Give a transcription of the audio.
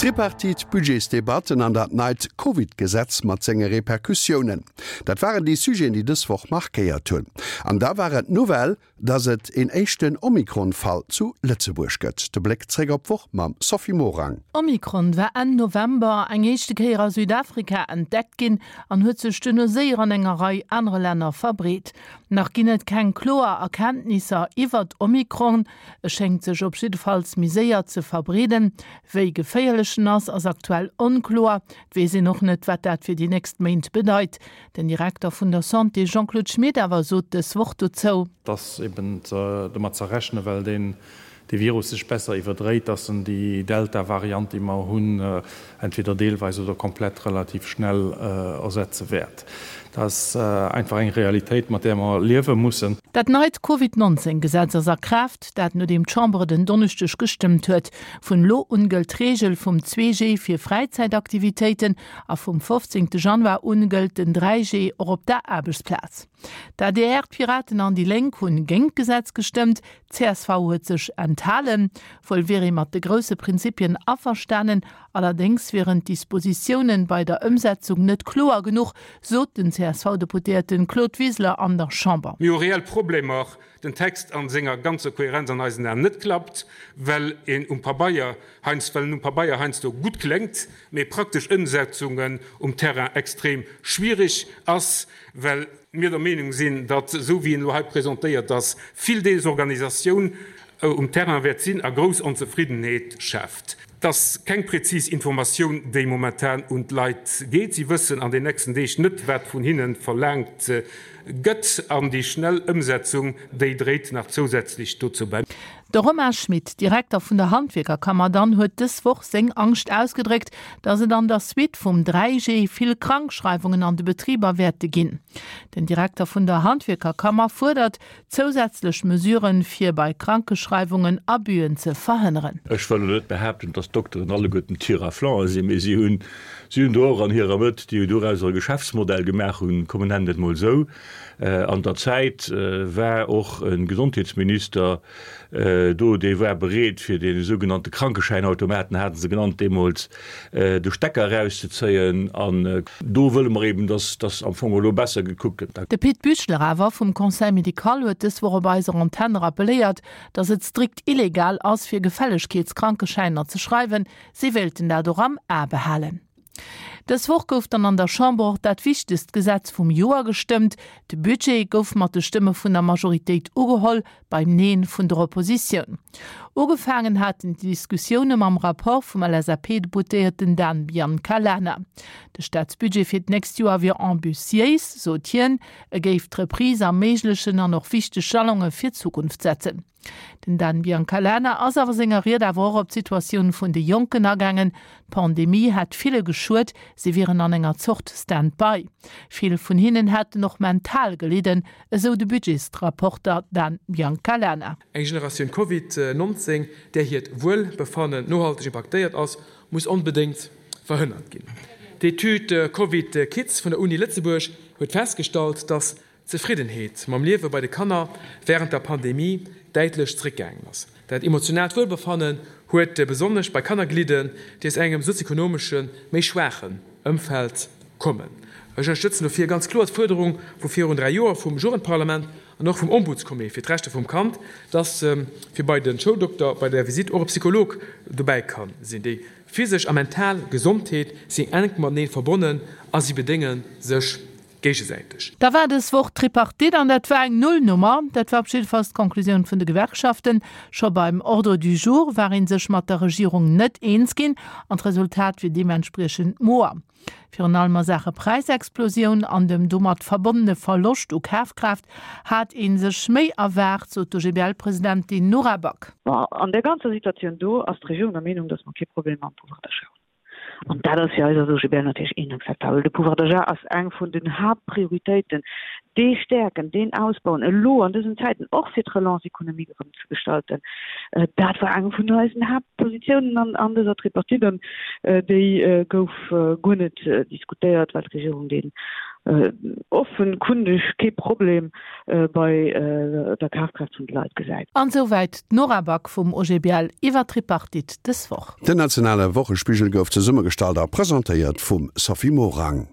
D'Tripartite, d'Budgetsdebatten an dat neit Covid-Gesetz mat senge Repercussiounen, dat waren déi Sujeten, déi dës Woch markéiert hunn. An da war et d'Nouvelle, dass et een éischten Omikron-Fall zu Lëtzebuerg gëtt. De Bléck zréck op d'Woch mam Sophie Morang. Omikron war Enn November eng éischte Kéier a Südafrika entdeckt ginn an huet sech duerno séier an enger Rei anere Länner verbreet. Nach ginn et keng kloer Erkenntnisser iwwert Omikron. E schéngt sech op jiddefalls méi séier ze verbreeden. Wéi geféierlech en ass, ass aktuell onkloer. Et weess een och net, wat dat fir déi nächst Méint bedeit. Den Direkter vun der Santé Jean-Claude Schmit awer sot dës Woch dozou. Et ass eben domat ze rechnen, well deen dee Virus sech besser iwwerdréit, dass en déi Delta-Variant, déi mer hunn, entweder deelweis oder komplett relativ schnell ersetze wäert. Dat ass einfach eng Realitéit, mat där mer liewe mussen. Dat neit Covid 19 Gesetz ass a Kraaft, dat nodeem d'Chamber et en Donneschdeg gestëmmt huet. Vun elo un gëllt d'Reegel vum 2G fir Fräizäitaktivitéiten a vum 15 Januar un gëllt den 3G och op der Aarbechtsplaz. D'ADR, d'Piraten an déi Lénk hunn géint d'Gesetz gestëmmt, Csv huet sech enthalen. Wuel wier ee mat de grousse Prinzipien averstanen, allerdéngs wieren d'Dispositiounen bei der Ëmsetzung net kloer genuch, sot den CSV-Deputéierten Claude Wiseler an der Chamber. Mir hu reell Problemer, den Text a senger ganzer Kohärenz an eisen Aen net klappt, well een um Pabeier heiansdo, well en um Pabeier heiansdo gutt kléngt, mee praktesch Ëmsetzungen um Terrain extrem schwierig ass, well mir der Meenung sinn, datt, esou wéi en elo hei presentéiert ass, vill Desorganisatioun um Terrain wäert sinn a grouss Onzefriddenheet schaaft. Et ass keng präzis Informatioun, déi momentan un d'Leit geet. Si wëssen an den nächsten Deeg net, wat vun hinne verlaangt gëtt. An déi schnell Ëmsetzung, déi dréit nach zousätzlech dozou bäi. De Romain Schmit, Direkter vun der Handwierkerkammer dann, huet dës Woch seng Angscht ausgedréckt, datt et an der Suite vum 3G vill Krankschreiwungen an de Betriber wäerte ginn. Den Direkter vun der Handwierkerkammer fuerdert zousätzlech Mesuren, fir bei Krankeschreiwungen Abüen ze verhënneren. Ech wëll elo net behaapten, dass d'Dokteren alleguerten Tire-à-flanc sinn, mee si hunn, si hunn do och an hirer Mëtt, déi dorauser e Geschäftsmodell gemaach hunn, komm mer nennen et emol esou. An der Zäit war och e Gesondheetsminister do, dee war bereet, fir dee sougenannte Krankeschäinautomaten, hate se genannt deemools, de Stecker erauszezéien. An do wëlle mer eben, dass dass am Fong elo besser gekuckt gëtt. De Pit Büchler awer vum Conseil médical huet dës Woch op eiser Antenn rappeléiert, dass et strikt illegal ass, fir Gefällegkeetskrankeschäiner ze schreiwen. Si wéilten dat och am A behalen. Dës Woch gouf dann an der Chamber och dat wichtegst Gesetz vum Joer gestëmmt. De Budget gouf mat de Stëmme vun der Majoritéit ugeholl, beim Neen vun der Oppositioun. Ugefaangen haten d'Diskussioune mam Rapport vum LSAP-Deputéierten Dan Biancalana. De Staatsbudget fir d'nächst Joer wier ambitiéis, sot hien. E géif d'Reprise erméiglechen an och wichteg Jalonge fir d'Zukunft setzen. Den Dan Biancalana ass awer senger Ried awer och op d'Situatioun vun de Jonken agaangen. D'Pandemie hätt ville geschuet, si wieren an enger Zort Stand-by. Vill vun hinnen hätten och mental gelidden, esou de Budgetsrapporter Dan Biancalana. Eng Generatioun Covid 19, där hiert Wuelbefannen nohalteg impaktéiert ass, muss onbedéngt verhënnert ginn. D'Etüd Covid Kids vun der Uni Lëtzebuerg huet festgestallt, datt D'Zefriddenheet mam Liewe bei de Kanner wärend der Pandemie däitlech zeréckgaangen ass. Dat emotionaalt Wuelbefannen huet besonnesch bei Kanner gelidden, déi aus engem sozioekonomesche méi schwaachen Ëmfeld kommen. Ech ënnerstëtzen dofir ganz kloer d'Fuerderung vu virun 3 Joer vum Jugendparlament an och vum Ombudscomité fir d'Rechter vum Kand, dass fir bei de Schouldokter bei der Visitt och e Psycholog dobäi ka sinn. Déi physesch a mental Gesondheet sinn enk matenee verbonnen a si bedénge sech géigesäiteg. Da war dës Woch d'Tripartite an dat war eng Nullnummer. Dat war op jiddefalls d'Conclusioun vun de Gewerkschaften. Scho beim Ordre du jour war ee sech mat der Regierung net eens ginn an d'Resultat wier deementspriechend moer. Virun allem a Saache Präisexplosioun an dem domat verbonnene Verloscht u Kafkraaft hat ee sech méi erwaart, sot d'OGBL-Presidentin Nora Back. Bon, an där ganzer Situatioun do ass d'Regierung der Meenung, datt mer kee Problem mam Pouvoir d'achat hunn. An dat ass fir eis als OGBL natierlech inakzeptabel. De Pouvoir d'achat ass eng vun den Haaptprioritéiten, dee stäerken, deen ausbauen, elo an dësen Zäiten, och fir d'Relance économique erëm ze gestalten. Dat war eng vun eisen Haaptpositiounen an dëser Tripartite an déi gouf guer net diskutéiert, well d'Regierung deen. Offenkundeg kee Problem bei der Kafkraaft vun de Leit gesäit. An souwäit d'Nora Back vum OGBL iwwer d'Tripartite dës Woch. Den nationale Wochespigel gouf zesummegestallt a presentéiert vum Sophie Morang.